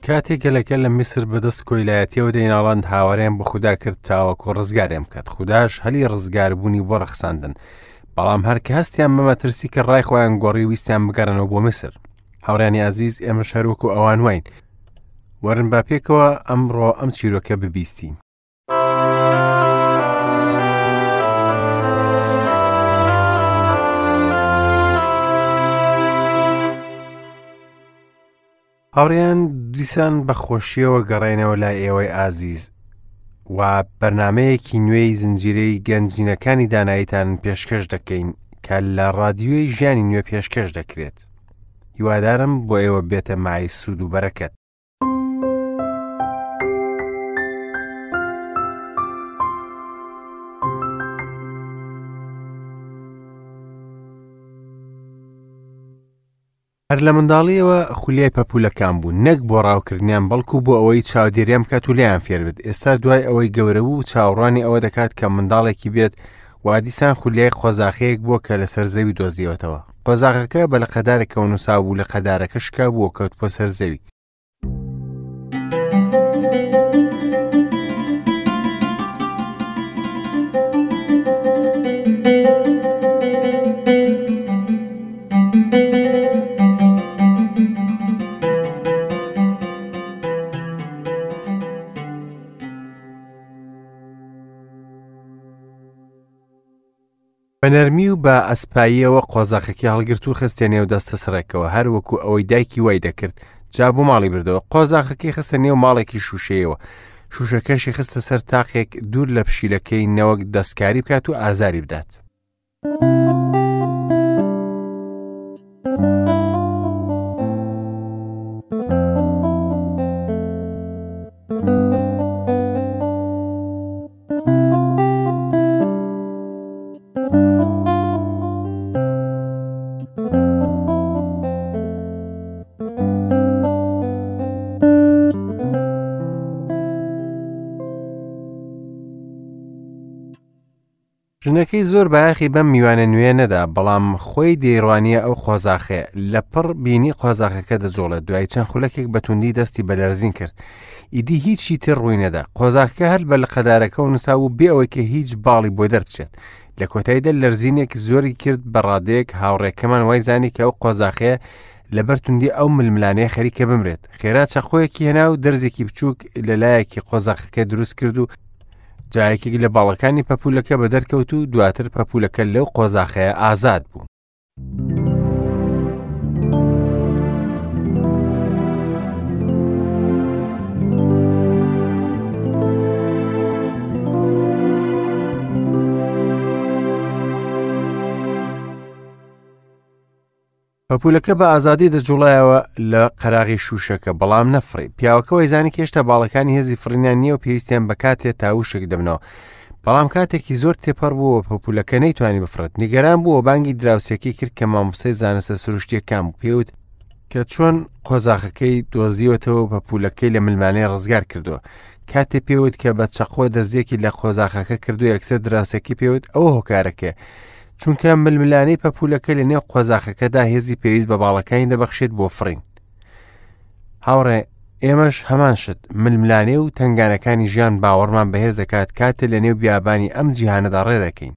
کاتێک گەلەکە لە میسر بەدەست کۆیلایەتیەوە دەیناڵاند هاواریان بۆ خودا کرد تاوەکو ڕزگاریان بکات خوداش هەلی ڕزگاربوونی بۆ ڕەخساندن بەڵام هەر کە هەستیان بە مەترسی کە ڕای خۆیان گۆڕی ویستیان بگەڕنەوە بۆ میسر هاوڕیانی ئازیز ئێمەش هەروەکو ئەوان واین وەرن با پێکەوە ئەمڕۆ ئەم چیرۆکە ببیستین هاوڕێیان دیسان بە خۆشیەوە گەڕێنەوە لای ئێوەی ئازیز و بەرنمەیەکی نوێی زنجیرەی گەنجینەکانی داناییتان پێشکەش دەکەین کە لە ڕادیۆی ژیانی نوێ پێشکەش دەکرێت هیوادارم بۆ ئێوە بێتە مای سوود و بەرەکەت. هەر لە منداڵیەوە خولیای پەپوولەکان بوو نەک بۆ ڕاوکردنیان بەڵکو بۆ ئەوەی چاودێریان بکات و لێیان فێر بێت ئێستا دوای ئەوەی گەورە بوو چاوەڕوانی ئەوە دەکات کە منداڵێکی بێت وا دیسان خولیای قۆزاخەیەک بووە کە لەسەر زەوی دۆزیەوەتەوە قۆزاغەکە بە لقەدارێکەوە نووسا بوو لە قەدارەکە شکا بوو و کەوتبووە سەر زەوی بە نەرمی و بە ئەسپاییەوە قۆزاخەکەی هەڵگرت و خستیە نێو دەستە سڕێکەوە هەر وەکو ئەوەی دایکی وای دەکرد جا بۆ ماڵی بردەوە قۆزاخەکەی خستە نێو ماڵێکی شوشەیەوە شوشەکەشی خستە سەر تاقێک دوور لە پشیلەکەی نەوەک دەستکاری بکات و ئازاری بدات. ژنەکەی زۆر بایەخی بەم میوانە نوێیە نەدا، بەڵام خۆی دەیڕوانییە ئەو قۆزاخەیە. لەپڕ بینی قۆزاخەکە دەجوڵێت. دوای چەند خولەکێک بە توندی دەستی بە لەرزین کرد. ئیدی هیچی تر ڕووی نەدا. قۆزاخەکە هەر بە لقەدارەکەوە نووسابوو بێ ئەوەی کە هیچ باڵی بۆ دەربچێت. لە کۆتاییدا لەرزینێک زۆری کرد بە ڕادەیەک هاوڕێکەمان وای زانی کە ئەو قۆزاخەیە لەبەر توندی ئەو ململانێ خەریکە بمرێت. خێرا چەقۆیەکی هێنا و دەرزێکی بچووک لە لایەکی قۆزاخەکە دروست کرد و جا یەکێک لە باڵەکانی پەپوولەکە بە دەرکەوت و دواتر پەپوولەکە لەو قۆزاخەیە ئازاد بوو. پەپوولەکە بە ئازادی دەجوڵایەوە لە قەراغی شووشەکە بەڵام نەفڕی پیاوەکە وەیزانی کە هێشتا باڵەکانی هێزی فڕینیان نییە و پێویستیان بە کاتێ تا وشک دەبنەوە بەڵام کاتێکی زۆر تێپەڕ بوو و پەپوولەکە نەیتوانی بفڕێت نیگەران بوو و بانگی دراوسێکەی کرد کە مامۆستای زانستە سروشتیەکان بوو پێوت کە چۆن قۆزاخەکەی دۆزیوەتەوە و پەپوولەکەی لە ملمانێ ڕزگار کردووە کاتێ پێوت کە بە چەقۆ دەرزیەکی لە قۆزاخەکە کردو یەکسەر دراوسێکی پێوت ئەوە هۆکارەکەیە چونکە ململانێی پەپوولەکە لە نێو قۆزاخەکەدا هێزی پێویست بە باڵەکانی دەبەخشێت بۆ فڕین هاوڕێ ئێمەش هەمان شت ململانێ و تنگانەکانی ژیان باوەڕمان بەهێز دەکات کاتێ لە نێو بیابانی ئەم جیهانەدا ڕێ دەکەین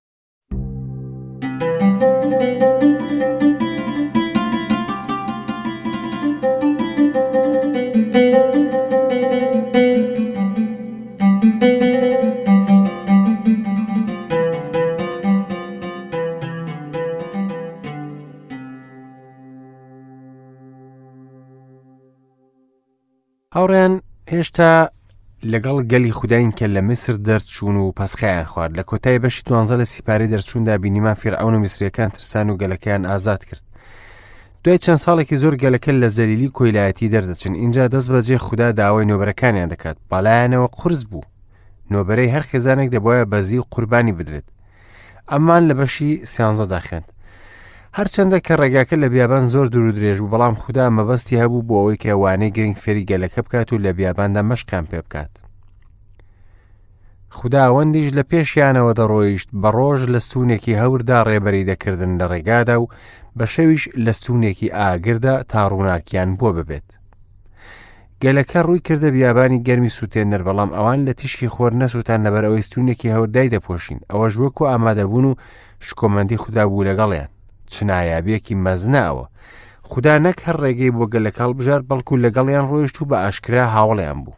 هاوڕێیان هێشتا لەگەڵ گەلی خوداین کە لە میسر دەرچوون و پەسخیان خوارد لە کۆتای بەشی دوانزە لە سیپاری دەرچووندا بینیمان فیرعەون و میسریەکان ترسان و گەلەکەیان ئازاد کرد دوای چەند ساڵێکی زۆر گەلەکە لە زەلیلی کۆیلایەتی دەردەچن ئینجا دەست بەجێ خودا داوای نۆبەرەکانیان دەکات بەلایەنەوە قورس بوو نۆبەرەی هەر خێزانێک دەبواە بەزی و قوربانی بدرێت ئەمان لە بەشی سیانزەدا خوێند هەرچەندە کە ڕێگاکە لە بیابان زۆر دوور و درێژ بوو بەڵام خودا مەبەستی هەبوو بۆ ئەوەی کە وانەی گرنگ فێری گەلەکە بکات و لە بیاباندا مەشقیان پێ بکات خوداوەندیش لە پێشیانەوە دەڕۆیشت بە ڕۆژ لە ستوونێکی هەوردا ڕێبەری دەکردن لە ڕێگادا و بە شەویش لە ستوونێکی ئاگردا تا ڕووناکیان بۆ ببێت. گەلەکە ڕووی کردە بیابانی گەرمی سووتێنەر، بەڵام ئەوان لە تیشکی خۆر نەسووتان لەبەر ئەوەی ستوونێکی هەور دایدەپۆشین، ئەوەش وەکو ئامادەبوون و شکۆمەندی خودا بوو لەگەڵیان. چ نایابییەکی مەزنە ئەوە! خودا نەک هەر ڕێگەی بۆ گەلەکە هەڵبژارد، بەڵکو لەگەڵیان ڕۆیشت و بە ئاشکرا هاوڵیان بوو.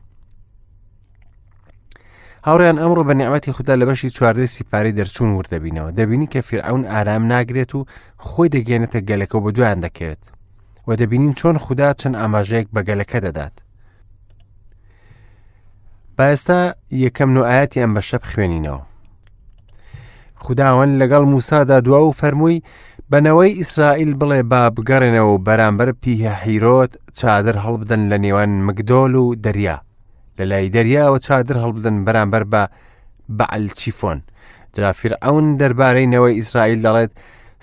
هاوڕیان ئەمڕۆ بە نیعمەتی خودا لە بەشی چواردەی سیپارەی دەرچوون ورد دەبینەوە دەبینی کە فیرعەون ئارام ناگرێت و خۆی دەگەێنێتە گەلەکە و بە دوایان دەکەوێت و دەبینین چۆن خودا چەند ئاماژەیەک بە گەلەکە دەدات با ئێستا یەکەم نۆ ئاەتی ئەم بەشە بخوێنینەوە خوداوەند لەگەڵ موسادا دوا و فەرمووی بەنەوەی ئیسرائیل بڵێ با بگەڕێنەوە و بەرامبەر پیهە حیرۆت چادر هەڵبدەن لە نێوان مگدۆل و دەریا لە لای دەریاوە چادر هەڵبدەن بەرامبەر بە بەعل چیفۆن جا فیرعەون دەربارەی نەوەی ئیسرائیل دەڵێت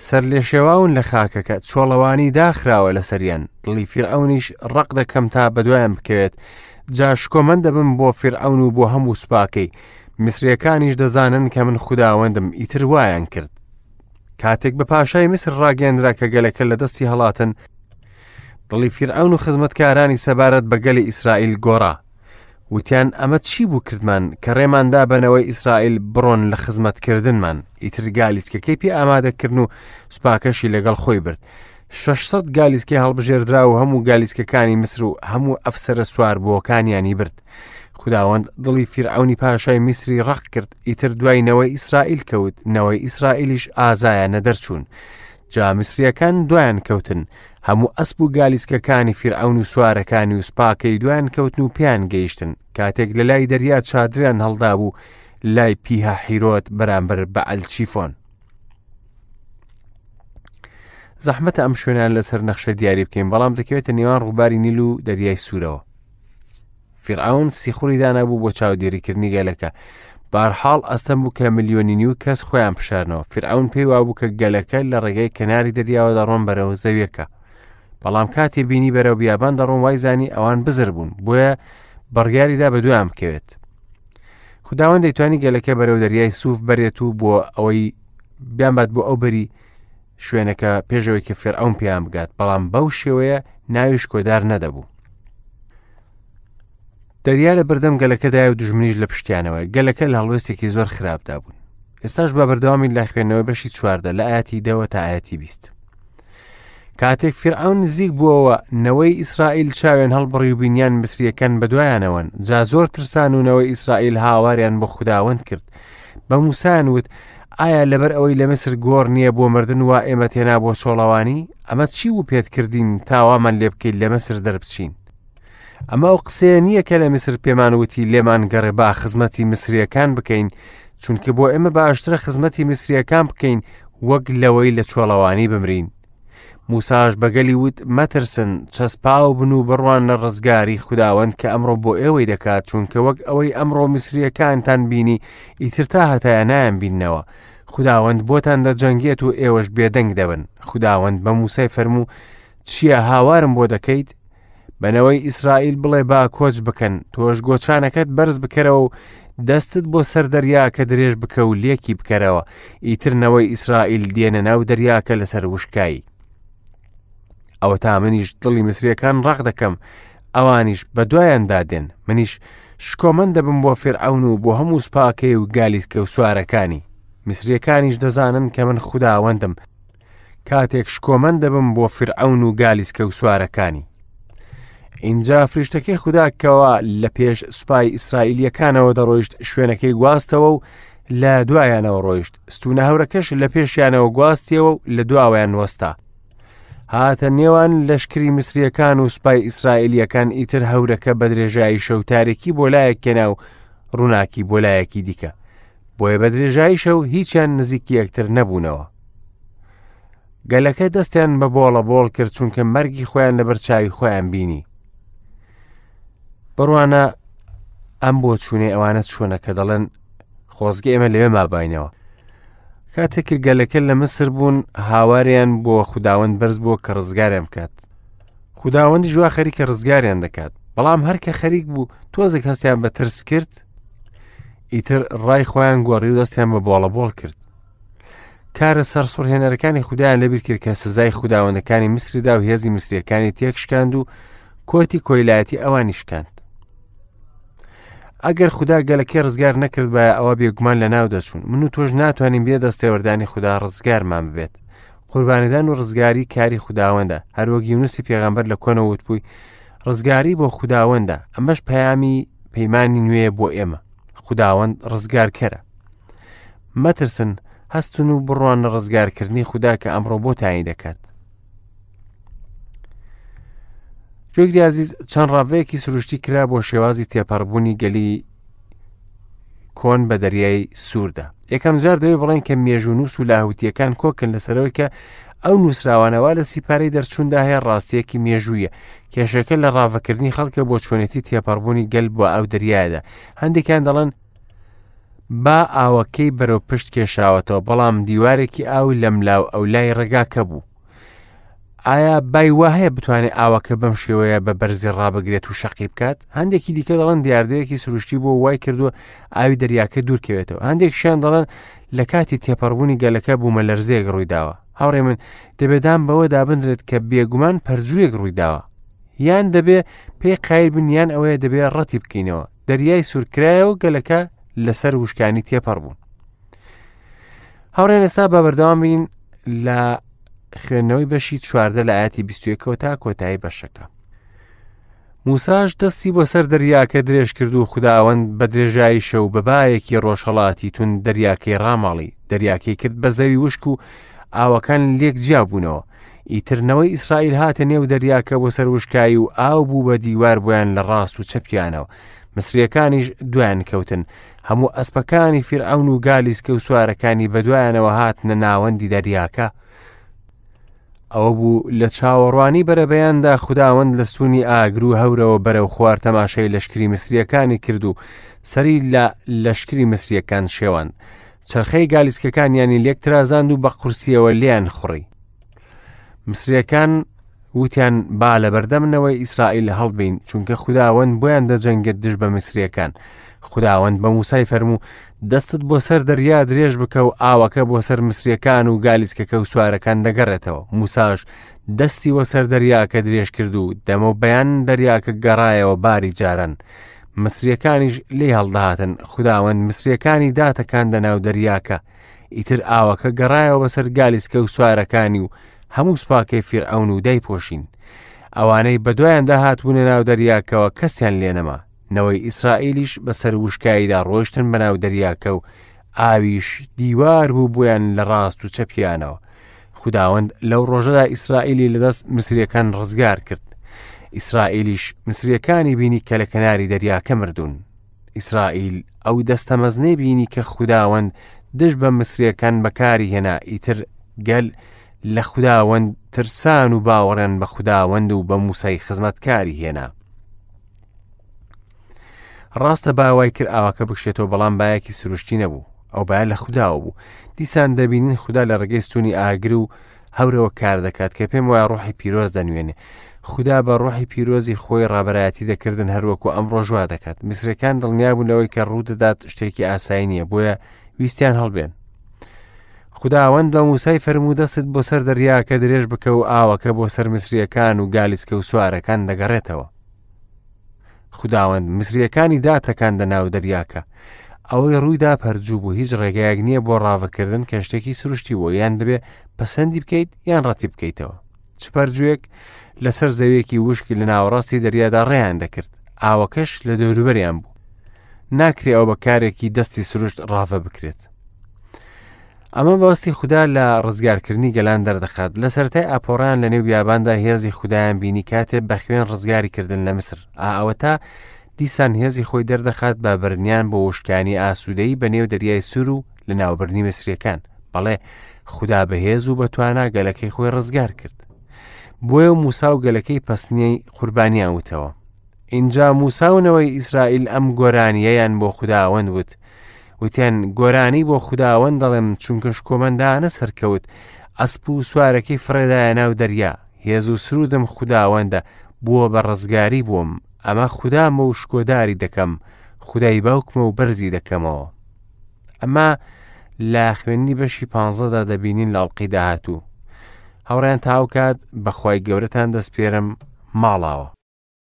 سەرلێشێواون لە خاکەکە چۆڵەوانی داخراوە لەسەریان دڵی فیرعەونیش ڕق دەکەم تا بەدوایان بکەوێت جا شکۆمەند دەبم بۆ فیرعەون و بۆ هەموو سوپاکەی میسریەکانیش دەزانن کە من خوداوەندم ئیتر وایان کرد کاتێک بە پاشای میسر ڕاگەندرا کە گەلەکە لە دەستی هەڵاتن دڵی فیرعەون و خزمەتکارانی سەبارەت بە گەلی ئیسرائیل گۆڕا وتیان ئەمە چی بوو کردمان کە ڕێماندا بەنەوەی ئیسرائیل بڕۆن لە خزمەتکردنمان ئیتر گالیسکەکەی پێ ئامادەکردن و سوپاکەشی لەگەڵ خۆی برد 600 گالیسکەی هەڵبژێردرا و هەموو گالیسکەکانی میسر و هەموو ئەفسەرە سواربووەکانیانی برد خوداوەند دڵی فیرعەونی پاشای میسری ڕەق کرد ئیتر دوای نەوەی ئیسرائیل کەوت نەوەی ئیسرائیلیش ئازایانە دەرچوون جا میسریەکان دوایان کەوتن هەموو ئەسپ و گالیسکەکانی فیرعەون و سوارەکانی و سوپاکەی دوایان کەوتن و پێیان گەیشتن کاتێک لە لای دەریا چادریان هەڵدابوو لای پیهە حیرۆت بەرامبەر بە ئەلچیفۆن. زەحمەتە ئەم شوێنان لەسەر نەخشە دیاری بکەین بەڵام دەکەوێتە نێوان ڕووباری نیل و دەریای سوورەوە. فیرعەون سیخوڕی دانابوو بۆ چاودێریکردنی گەلەکە. بارحاڵ ئەستەم بوو کە ملیۆنی نیو کەس خۆیان بشارنەوە. فیرعەون پێی وابوو کە گەلەکە لە ڕێگەی کەناری دەریاوە دەڕۆن بەرەو زەویەکە. بەڵام کاتێ بینی بەرەو بیابان دەڕۆن وای زانی ئەوان بزر بوون، بۆیە بڕیاریدا بە دوایان بکەوێت. خداوەند دەیتوانی گەلەکە بەرەو دەریای سوف بەرێت و بۆ ئەوەی بیانبات بۆ ئەو بەری شوێنەکە پێشەوەی کە فێرعەون پێیان بگات بەڵام بەو شێوەیە ناوی شکۆدار نەدەبوو دەریا لە بەردەم گەلەکەدایە و دژمنیش لە پشتیانەوە گەلەکە لە هەڵوێستێکی زۆر خراپدا بوون ئێستاش بە بەردەوامی لە خوێندنەوەی بەشی چواردە لە ئاەتی دەوە تا ئاەتی بیست کاتێک فرعون نزیک بووەوە نەوەی ئیسرائیل چاوێن هەڵبڕی و بینیان مسریەکان بەدوایانەوەن جا زۆر ترسان و نەوەی ئیسرائیل هاواریان بۆ خوداوەند کرد بە موسایان وت ئایا لەبەر ئەوەی لە میسر گۆڕ نییە بۆ مردن وا ئێمەت هێنا بۆ چۆڵەوانی؟ ئەمە چی بوو پێت کردین تا وامان لێ بکەیت لە میسر دەربچین؟ ئەمە ئەو قسەیە نییە کە لە میسر پێمان وتی لێمان گەڕێ با خزمەتی میسریەکان بکەین چونکە بۆ ئێمە باشترە خزمەتی میسریەکان بکەین وەک لەوەی لە چۆڵەوانی بمرین. موساش بە گەلی وت، مەترسن، چەسپاو بن و بڕواننە ڕزگاری خوداوەند کە ئەمڕۆ بۆ ئێوەی دەکات، چونکە وەک ئەوەی ئەمڕۆ میسرییەکانتان بینی، ئیتر تا هەتایە نایانبیننەوە. خوداوەند بۆتان دەجەنگێت و ئێوەش بێدەنگ دەبن. خوداوەند بە موسای فەرموو، چییە هاوارم بۆ دەکەیت؟ بە نەوەی ئیسرائیل بڵێ با کۆچ بکەن، تۆش گۆچانەکەت بەرز بکەرەوە و دەستت بۆ سەر دەریاکە درێژ بکە و لێکی بکەرەوە، ئیتر نەوەی ئیسرائیل دێنە ناو دەریاکە لەسەر وشکایی. ئەوەتا منیش دڵی میسریەکان ڕەق دەکەم، ئەوانیش بە دوایاندا دێن، منیش شکۆمەند دەبم بۆ فیرعەون و بۆ هەموو سوپاکەی و گالیسکە و سوارەکانی. میسریەکانیش دەزانن کە من خوداوەندم، کاتێک شکۆمەند دەبم بۆ فیرعەون و گالیسکە و سوارەکانی. ئینجا فریشتەکەی خودا کەوا لە پێش سوپای ئیسرائیلیەکانەوە دەڕۆیشت شوێنەکەی گواستەوە و لە دوایانەوە ڕۆیشت ستونە هەورەکەش لە پێشیانەوە گواستیەوە و لە دواوەیان وەستا هاتە نێوان لەشکری میسریەکان و سوپای ئیسرائیلیەکان ئیتر هەورەکە بە درێژایی شەو تارێکی بۆ لایەک کێنا و ڕووناکی بۆ لایەکی دیکە بۆیە بە درێژایی شەو هیچیان نزیکی یەکتر نەبوونەوە گەلەکە دەستیان بە بۆڵە بۆڵ کرد چونکە مەرگی خۆیان لەبەر چاوی خۆیان بینی بڕوانە ئەم بۆ چوونەی ئەوانە چۆنە کە دەڵێن خۆزگە ئێمە لەوێ مابینەوە کاتێک کە گەلەکە لە مسر بوون هاواریان بۆ خودداوەند بەرز بووە کە ڕزگاریان بکات خودداوەندی ژوا خەریکە ڕزگاریان دەکات بەڵام هەر کە خەریک بوو تۆزێک هەستیان بە ترس کرد ئیتر ڕای خۆیان گۆڕی و دەستیان بە بۆڵە بۆڵ کرد کارە سەرسوڕهێنەرەکانی خودایان لەبیر کرد کە سزای خوداوەندەکانی میسری دا و هێزی میسریەکانی تێکشکاند و کۆتی کۆیلایەتی ئەوانی شکاند. ئەگەر خودا گەلەکەی ڕزگار نەکردبایە ئەوە بێگومان لە ناو دەچوون. من و تۆش ناتوانین بێ دەستێوەردانی خودا ڕزگارمان ببێت. قوربانیدان و ڕزگاری کاری خوداوەندە. هەروەک یونسی پێغەمبەر لە کۆنەوە وتبووی ڕزگاری بۆ خوداوەندە. ئەمەش پەیامی پەیمانی نوێیە بۆ ئێمە. خوداوەند ڕزگارکەرە. مەترسن، هەستن و بڕوانە ڕزگارکردنی خودا کە ئەمڕۆ بۆتانی دەکات. گوێگری ئازیز چەند ڕاڤەیەکی سروشتی کرا بۆ شێوازی تێپەڕبوونی گەلی کۆن بە دەریای سووردا یەکەم جار دەوێت بڵێن کە مێژوونووس و لاهوتیەکان کۆکن لەسەرەوەی کە ئەو نووسراوانەوە لە سیپارەی دەرچووندا هەیە ڕاستیەکی مێژوویە کێشەکە لە ڕاڤەکردنی خەڵکە بۆ چۆنێتی تێپەڕبوونی گەل بۆ ئەو دەریایەدا هەندێکیان دەڵێن با ئاوەکەی بەرەو پشت کێشاوەتەوە بەڵام دیوارێکی ئاو لەملاو ئەولای ڕێگاکە بوو ئایا بای وا هەیە بتوانێت ئاوەکە بەم شێوەیە بە بەرزی ڕابگرێت و شەقی بکات هەندێکی دیکە دەڵێن دیاردەیەکی سروشتی بۆ وای کردووە ئاوی دەریاکە دوورکەوێتەوە هەندێکشیان دەڵێن لە کاتی تێپەڕبوونی گەلەکە بوومە لەرزەیەک ڕوویداوە هاوڕێ من دەبێدان بەوە دابنرێت کە بێگومان پەرجوویەک ڕوویداوە یان دەبێ پێی قایل بن یان ئەوەیە دەبێ ڕەتی بکەینەوە دەریای سوورکرایە و گەلەکە لەسەر وشکانی تێپەڕ بوون هاوڕێن ئێستا بە بەردەوام بین لە خوێندنەوەی بەشی چواردە لە ئاەتی بیستویەکەوە تا کۆتایی بەشەکە موساش دەستی بۆ سەر دەریاکە درێژ کرد و خوداوەند بە درێژایی شەو بە بایەکی ڕۆژهەڵاتی تون دەریاکەی ڕاماڵی دەریاکەی کرد بە زەوی وشک و ئاوەکان لێک جیا بوونەوە ئیتر نەوەی ئیسرائیل هاتە نێو دەریاکە بۆ سەر وشکایی و ئاو بوو بە دیوار بۆیان لە ڕاست و چەپیانەوە مسریەکانیش دوایان کەوتن هەموو ئەسپەکانی فیرعەون و گالیسکە و سوارەکانی بەدوایانەوە هاتنە ناوەندی دەریاکە ئەوە بوو لە چاوەڕوانی بەرەبەیاندا خوداوەند لە ستونی ئاگر و هەورەوە بەرەو خوار تەماشای لەشکری میسرییەکانی کرد و سەری لە لەشکری میسرییەکان شێواند. چەرخەی گالیسکەکانیانی لێک ترازاند و بە قورسییەوە لێیان خوڕی. میسرییەکان وتیان با لەبەردەم نەوەی ئیسرائیل هەڵبین چونکە خوداوەند بۆیان دەجەنگێت دژ بە میسرییەکان. خوداوەند بە موسای فەرموو دەستت بۆ سەر دەریا درێژ بکە و ئاوەکە بۆ سەر مسریەکان و گالیسکەکە و سوارەکان دەگەڕێتەوە موساش دەستی وە سەر دەریاکە درێژ کرد و دەمە و بەیان دەریاکە گەڕایەوە باری جاران مسریەکانیش لێی هەڵدەهاتن خوداوەند مسریەکانی داتەکاندە ناو دەریاکە ئیتر ئاوەکە گەڕایەوە بەسەر گالیسکە و سوارەکانی و هەموو سوپاکەی فیرعەون و دایپۆشین ئەوانەی بەدوایاندا هاتبوونە ناو دەریاکەوە کەسیان لێنەما نەوەی ئیسرائیلیش بەسەر وشکاییدا ڕۆیشتن بەناو دەریاکە و ئاویش دیوار بوو بۆیان لە ڕاست و چەپیانەوە. خوداوەند لەو ڕۆژەدا ئیسرائیلی لەدەست مسریەکان ڕزگار کرد. ئیسرائیلیش مسریەکانی بینی کە لە کەناری دەریاکە مردوون. ئیسرائیل ئەو دەستە مەزنەی بینی کە خوداوەند دژ بە مسریەکان بەکاری هێنا ئیتر گەل لە خوداوەند ترسان و باوەڕیان بە خوداوەند و بە موسای خزمەتکاری هێنا. ڕاستە با وای کرد ئاوەکە بکشێتەوە بەڵام بایەکی سروشتی نەبوو ئەو باە لە خودداوە بوو دیسان دەبینین خودا لە ڕێگەی ستونی ئاگر و هەورەوە کار دەکات کە پێم وایە ڕۆحی پیرۆز دەنوێنێ خودا بە ڕۆحی پیرۆزی خۆی ڕابەرایەتی دەکردن هەروەکو ئەم ڕۆژوا دەکات میسرەکان دڵنیابوون لەوەی کە ڕوودەدات شتێکی ئاسایی نییە بۆیە ویستیان هەڵبێن خوداوەند بە موسای فەرموو دەستت بۆ سەر دەریاکە درێژ بکە و ئاوەکە بۆ سەر میسریەکان و گالیسکە و سوارەکان دەگەڕێتەوە خوداوەند میسریەکانی داتەکاندە ناو دەریاکە ئەوەی ڕوویدا پەرجوو بوو هیچ ڕێگایەک نییە بۆ ڕاڤەکردن کە شتێکی سروشتی بوو یان دەبێ پەسەندی بکەیت یان ڕەتی بکەیتەوە چ پەرجوویەک لەسەر زەویەکی وشک لە ناوەڕاستی دەریادا ڕێیان دەکرد ئاوەکەش لە دەوروبەریان بوو ناکرێ ئەو بە کارێکی دەستی سروشت ڕاڤە بکرێت ئەمە بەستی خودا لە ڕزگارکردنی گەلان دەردەخات لە سەرەتای ئاپۆڕیان لە نێو بیاباندا هێزی خودایان بینی کاتێ بە خوێن ڕزگاری کردن لە میسر ئا ئەوەتا دیسان هێزی خۆی دەردەخات بە بردنیان بۆ وشکانی ئاسوودەیی بە نێو دەریای سوور و لە ناوبردنی میسریەکان بەڵێ خودا بەهێز و بەتوانا گەلەکەی خۆی ڕزگار کرد بۆیە و موسا و گەلەکەی پەسنیەی قوربانیان وتەوە ئینجا موسا و نەوەی ئیسرائیل ئەم گۆرانییەیان بۆ خوداوەند وت وتیان گۆرانی بۆ خوداوەند دەڵێم چونکە شکۆمەندانە سەرکەوت ئەسپ و سوارەکەی فڕێدایە ناو دەریا هێز و سرودم خوداوەندە بووە بە ڕزگاری بووم ئەمە خودامە و شکۆداری دەکەم خودای باوکمە و بەرزی دەکەمەوە ئەمە لە خوێندنی بەشی پانزەدا دەبینین لە ئەڵقەی داهاتوو هاوڕێیان تاوکات بەخوای گەورەتان دەستپێرم ماڵاوە.